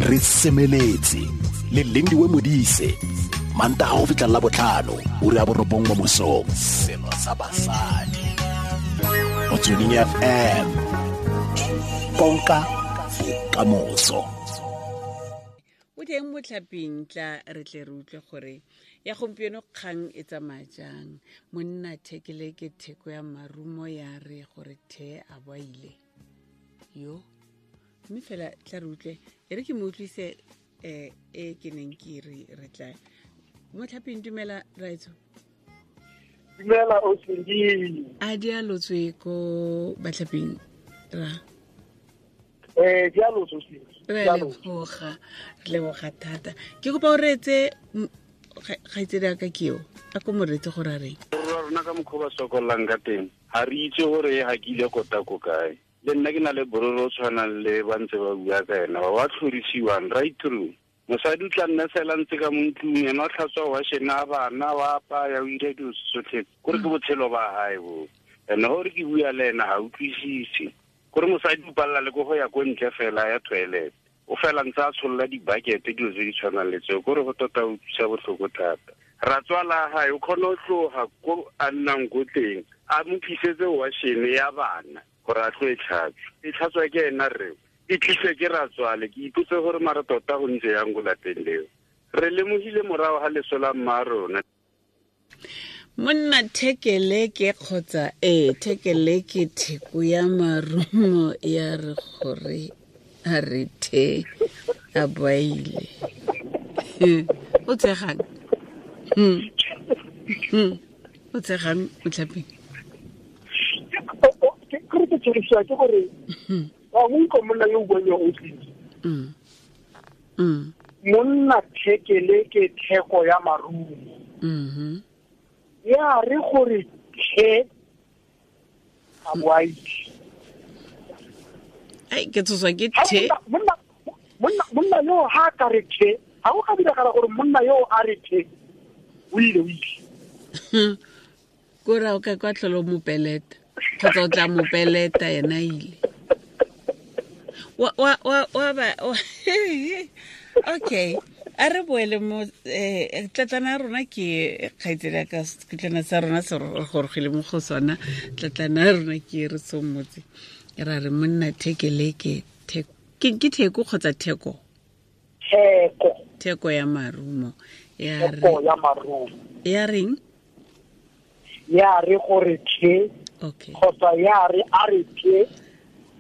Re semeletse le Lindiwe Modise, Mantaga go fitlha la botlhano, ura ya 9 mo mosong. Selo sa basadi. Motsweding FM. Konka bokamoso. O teng motlhaping, tla re tle re utlwe gore ya gompieno kgang e tsamaya jang. Monna thekele ke theko ya marumo ya re gore the a boile yo, mme fela tla re utlwe. E re ke mo utlwise e ke neng ke re re tla motlhaping. Dumela raetso. Dumela Osindi. A di a lotswe ko batlhaping ra? Di a lotswe Osindi. Re leboga, re leboga thata. Ke kopa o reetse kgaitsedi a ka ke eo, a ko mo reetse gore a reng. Rona ka mokgwa ba sokolang ka teng, ga re itse gore e hakile kota ko kae. Le nna ke na le bororo o tshwanang le ba ntse ba bua ka ena, ba ba tlhorisiwang right through. Mosadi o tla nna fela ntse ka mo ntlong, ena o tlhatswa washene a bana, wa apaya, o ira dilo tsotlhe. Kore ke botshelo ba hae bo. And gore ke bua le ena ga utlwisise. Kore mosadi o palela le ko go ya ko ntle fela ya toilet. O fela ntse a tsholola di-bucket, dilo tse di tshwanang le tseo. Kore go tota o utlwisa botlhoko thata. Ratswala hae o kgona go tloga ko a nnang ko teng, a mo tlisetse washene ya bana gore a tlo e tlhatswa. E tlhatswa ke ena rre, e tlise ke ratswale. Ke ipotse gore mara tota go ntse yang ko lapeng leo. Re lemogile morago ga leso la mma rona. Monna thekele ke kgotsa thekele ke theko ya marumo ya re gore a re the a boile. O tsegang? O tsegang motlhaping? Ke re ke tshegisiwa ke gore wa mo utlwa monna yo o buang yo o tlile. Monna thekele ke theko ya marumo. Ya re gore the a boile. Ai, ke tshoswa ke the. Monna yo ha ka re the, ha o ka diragala gore monna yo a re the, o ile, o ile. Kore o ka kwa tlholo mopeleta, kgotsa o tla mopeleta yena ile. Wa, wa, wa, wa ba, wa, okay. A re boele mo, tlatlana ya rona ke kgaitsedi ya ka, setlana sa rona se re gorogile mo go sona. Tlatlana ya rona ke re somotse. Ra re monna thekele ke theko. Ke theko kgotsa theko? Theko. Theko ya marumo. Ya re Theko ya marumo. Ya reng? Ya re gore the. Okay. Kgotsa ya re a re the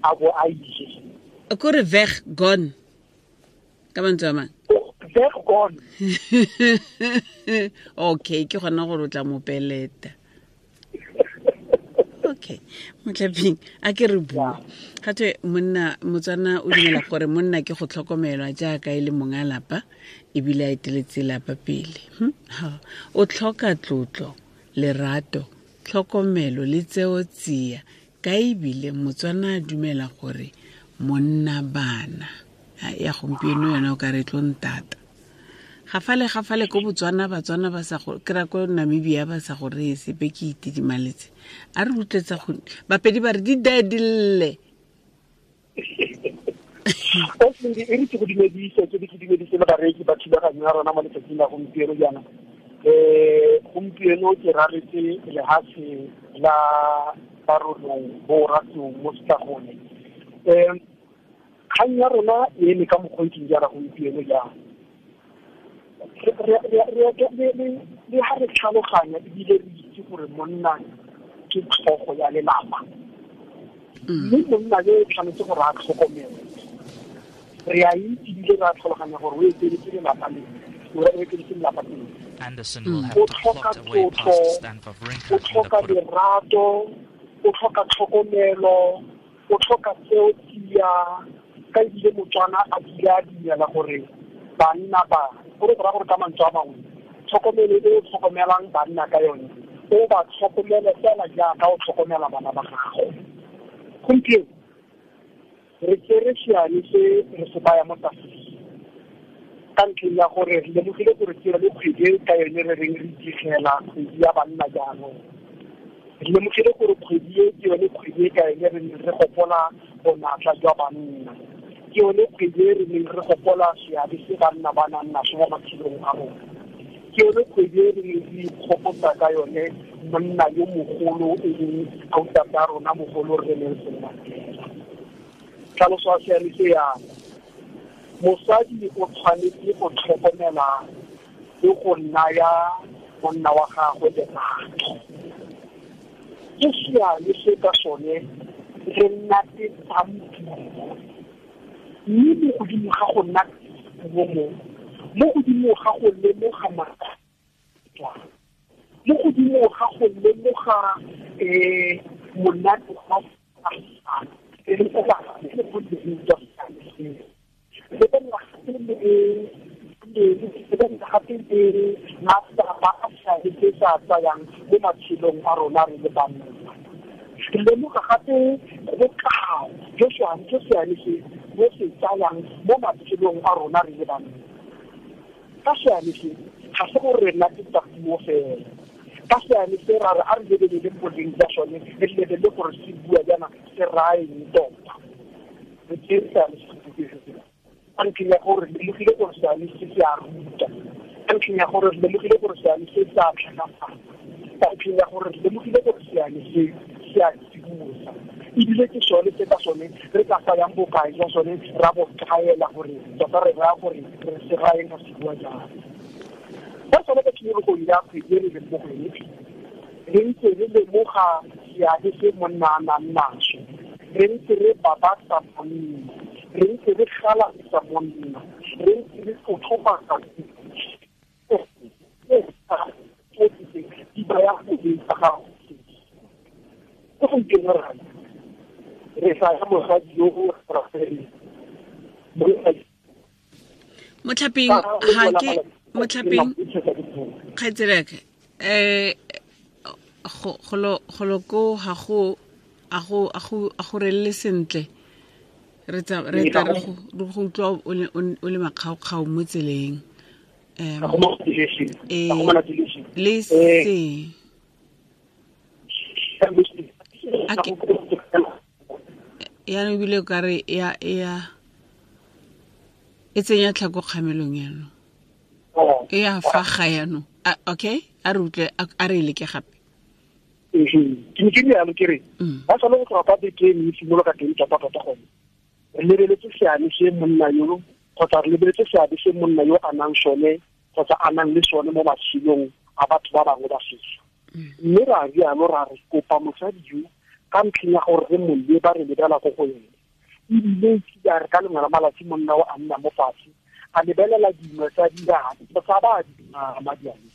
a bo a ile. Kore veg gone. Ka mantswe a mang? Veg gone. Okay, ke gona gore o tla mo peleta. Okay, motlhaping a ke re bua. Ga twe monna Motswana o dumela gore monna ke go tlhokomelwa jaaka e le monga lapa ebile a eteletse lapa pele. O tlhoka tlotlo, lerato, tlhokomelo le tseo tsia. Ka ebile Motswana a dumela gore monna bana. Ya gompieno yona o ka re tlo ntata. Gafale gafale ko Botswana, Batswana ba sa go kry-a ko Namibia ba sa go reye sepe, ke itidimaletse. A re utlwetsa go Bapedi ba re di dae di lle. Osindi, e re ke go dumedise, ke be ke dumedise le bareki ba thulaganyo ya rona mo letsatsing la gompieno jaana. Gompieno ke raletse lehatshe la Barolong bo Ratlou mo Setlagone. Kgang ya rona e eme ka mokgwa o ntseng jaana gompieno jaana. Le ha re tlhaloganya ebile re itse gore monna ke tlhogo ya lelapa. Mme monna yo o tshwanetse gore a tlhokomele. Re a itse ebile re a tlhaloganya gore o eteletse lelapa le, o eteletse lelapa pele. Anderson will have O to tlhoka plot a way past tlotlo, Stan Wawrinka o in the tlhoka quarter. lerato, o tlhoka tlhokomelo, o tlhoka tseo tsia, ka ebile Motswana a bile a dumela gore banna ba, gore go raya gore ka mantswe a mangwe, tlhokomelo e o tlhokomelang banna ka yone, o ba tlhokomele fela jaaka o tlhokomela bana ba gago. Gompieno re tsere seane se re se baya mo tafoleng ka ntlheng ya gore re lemogile gore ke yone kgwedi e ka yone re reng re digela kgwedi ya banna jaanong. Re lemogile gore kgwedi e ke yone kgwedi e ka yone re neng re gopola bonatla jwa banna. Ke yone kgwedi e re neng re gopola seabe se banna ba nang naso mo matshelong a rona. Ke yone kgwedi e re neng re ikgopotsa ka yone monna yo mogolo e leng autate a rona mogolo Rre Nelson Mandela. Tlhaloso ya seane se yana: mosadi o tshwanetse go tlhokomela le go naya monna wa gagwe lerato. Ke seane se ka sone re natetsang puo, mme mo godimo ga go nna puo mo godimo ga go lemoga matswa, mo godimo ga go lemoga monate wa gape le matsapa a seabe se sa tsayang mo matshelong a rona re le banna. Re lemoga gape bokao jo seane se bo se tsayang mo matshelong a rona re le banna. Ka seane se ga se gore re natetsa puo fela. Ka seane se ra re a re lebelele boleng jwa sone, re lebelele gore se bua jaana se raya eng tota. Re tseye seane se ka ntlheng ya gore re lemogile gore seane se se a ruta, ka ntlheng ya gore re lemogile gore seane se se a tlhakafatsa, ka ntlheng ya gore re lemogile gore seane se se a tsibosa, ebile ke sone se ka sone re ka tsayang bokae jwa sone ra bo kaela gore tota re raya gore re se rayeng ka se bua jang. Ka sone ka tshimologong ya kgwedi e re leng mo go yone, re ntse re lemoga seabe se monna a nang naso, re ntse re babatsa monna, re ntse re galatsa monna, re ntse re tlotlomatsa di baya boleng tsa gago. Ke gompieno re sa ya mosadi yo o rafeleng. Motlhapeng ga ke motlhapeng kgaitseleke golo ko ga go a go relele sentle, re tla re go utlwa o le makgaokgao mo tseleng. Le se yaanong ebile o kare ya e tsenya tlhako kgamelong yaanong, e ya faga yaanong. Okay, a re utlwe, a re leke gape. Ke ne ke rialo ke re ba sale go tloga ka beke e simolola ka teng tota-tota gone re lebeletse seane se monna yo, kgotsa re lebeletse seabe se monna yo a nang sone kgotsa a nang le sone mo matshelong a batho ba bangwe ba setso. Mme ra rialo ra re kopa mosadi yo ka ntlheng ya gore re mo leba re lebela ko go ene, ebile a re ka lengwe la malatsi monna o a nna mo fatshe a lebelela dingwe tsa diane tsa ba di madiane,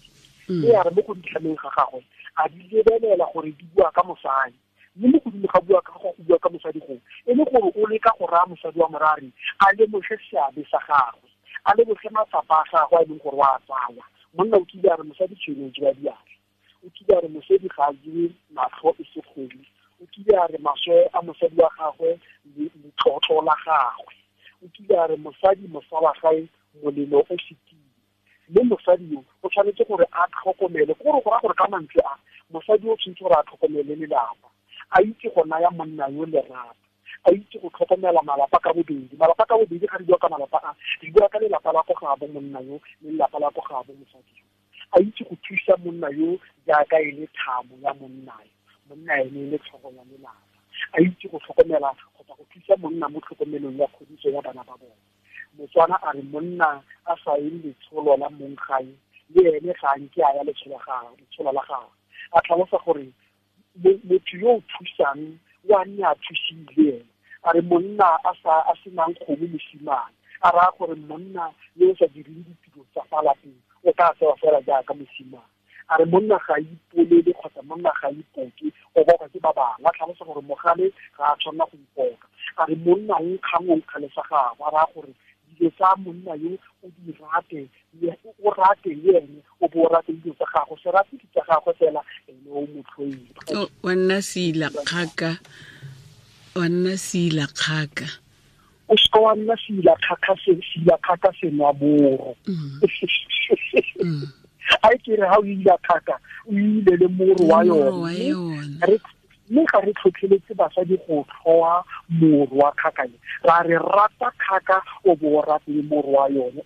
e a re mo go ditlhameng ga gagwe a di lebelela gore di bua ka mosadi, mme mo godimo ga bua ka go bua ka mosadi go e le gore o leka go raya mosadi wa morari a lemoge seabe sa gagwe, a lemoge matsapa a gagwe a e leng gore wa a tsaya. Monna o kile a re mosadi tshwene o jewa diatla, o kile a re mosadi ga a jewe matlho e se kgomo, o kile a re maswe a mosadi wa gagwe letlotlo la gagwe, o kile a re mosadi mosala gae molelo o fetile. Mme mosadi yo o tshwanetse gore a tlhokomele, ke gore go raya gore ka mantswe a mosadi o tshwanetse gore a tlhokomele lelapa, a itse go naya monna yo lerato, a itse go tlhokomela malapa ka bobedi. Malapa ka bobedi ga re bua ka malapa a, re bua ka lelapa la ko gaabo monna yo le lelapa la ko gaabo mosadi yo. A itse go thusa monna yo jaaka e le thamo ya monna yo, monna ene e le tlhogo ya lelapa, a itse go tlhokomela kgotsa go thusa monna mo tlhokomelong ya kgodiso ya bana ba bone. Motswana a re monna a sa ye letsholo la mong gae le ene ga nke a ya letsholo la gagwe. A tlhalosa gore motho yo o thusang o a nne a thusile ene. A re monna a senang kgomo mosimane, a raya gore monna yo o sa direng ditiro tsa fa lapeng o tla tsewa fela jaaka mosimane. A re monna ga a ipolele kgotsa monna ga a ipoke, o boka ke ba bangwe. A tlhalosa gore mogale ga a tshwanela go ipoka. A re monna o nkgang o nkgale sa gagwe, a raya gore dilo tsa monna yo o di rate, o rate le ene, o bo o rate dilo tsa gagwe, se rate di tsa gagwe fela ene o mo tlhoile. Wa nna seila kgaka, wa nna seila kgaka. O seka wa nna seila kgaka, seila kgaka senwa moro. A ke re ha o ile kgaka, o ile le moro wa yone. Re Mme ga re tlhotlheletse basadi go tlhoa morwa kgakane, ra re rata kgaka o bo o rate le morwa yone.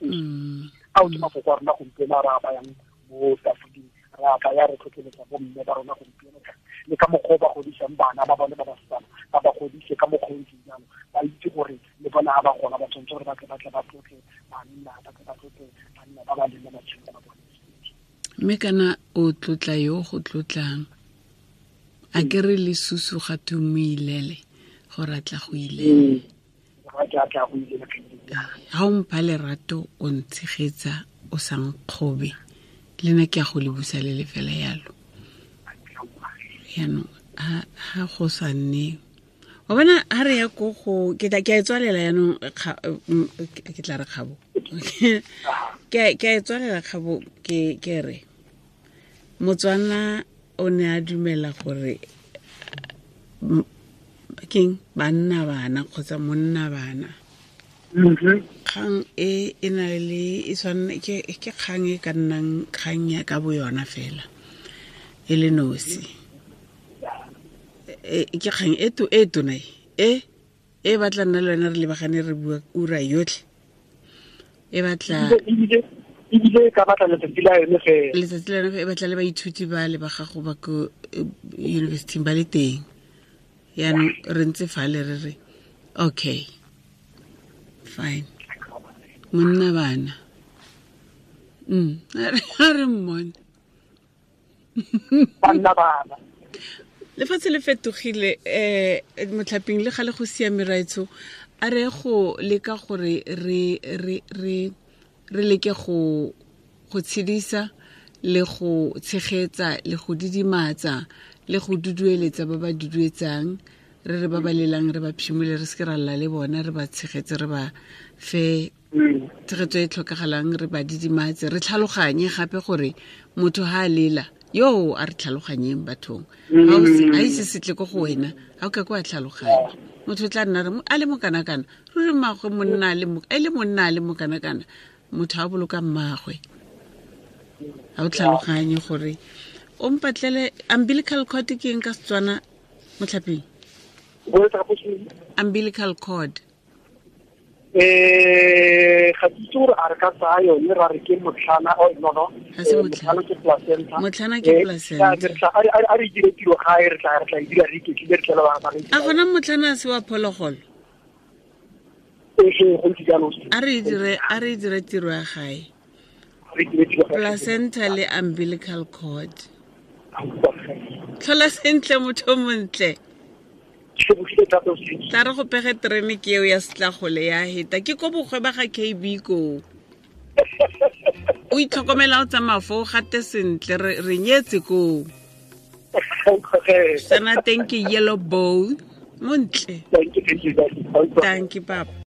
Ao ke mafoko a rona gompieno a re a bayang mo tafoleng, re a baya re tlhotlheletsa bomme ba rona gompieno le ka mokgwa o ba godisang bana ba bone ba basetsana, ba ba godise ka mokgwa o ntseng jalo, ba itse gore le bona ga ba gola ba tshwanetse gore ba tle ba tlotle banna, ba tle ba tlotle banna ba ba leng mo matshelong a bone. Mme kana o tlotla yo go tlotlang, a ke re le susu ga tu mo ilele gore a tla go ilele. Ga o mpha lerato o ntshegetsa o sa nkgobe, le nna ke a go le busa le le fela yalo. Yaanong ha go sa nne wa bona ha re ya ko go ke tla ke a e tswalela yaanong ke tla re kgabo ke a e tswalela kgabo ke re Motswana o ne a dumela gore keng banna bana kgotsa monna bana. Kgang e e na le e tshwanne ke kgang e ka nnang kgang ya ka bo yona fela e le nosi. Ke kgang e to e tona e e batla nna le wena re lebagane re bua ura yotlhe. E batla ebile ka batla letsatsi la yone fela. Letsatsi la yone e batla le baithuti ba le ba gago ba ko university ba le teng. Yaanong re ntse fale re re okay fine monna bana a re mmone banna bana. Lefatshe le fetogile motlhaping le gale go siame raetsho, a re go leka gore re re re re leke go tshedisa le go tshegetsa le go didimatsa le go dudueletsa ba ba duduetsang, re re ba ba lelang re ba phimole, re seke ra lla le bona, re ba tshegetse, re ba fe tshegetso e tlhokagalang, re ba didimatse, re tlhaloganye gape gore motho ha a lela yo a re tlhaloganyeng bathong. Ha ise setle ko go wena ha o ka kwa tlhaloganya. Motho tla nna re a le mokanakana, ruri mmagwe monna a le e le monna a le mokanakana, motho a boloka mmagwe. Ha o tlhaloganye gore o mpatlele umbilical cord ke eng ka Setswana motlhaping? Umbilical cord. Ga ke itse gore a re ka tsaya yone ra re ke motlhana, oh, no, no. Motlhana ke placenta. Motlhana ke placenta. A re dire tiro gae, re tla e dira re iketlile, re tlele ba re. A gona motlhana se wa phologolo? Ee, go ntse jalo. A re dire tiro ya gae. Placenta le umbilical cord. Tlhola sentle motho montle. Tla re go pege terene ke eo ya setlagole ya heta ke ko bogwe ba ga KB ko. O itlhokomela o tsamaya foo gate sentle re nyetse koo. Sana teng ke yellow bowl montle. Thank you. Thank you papa.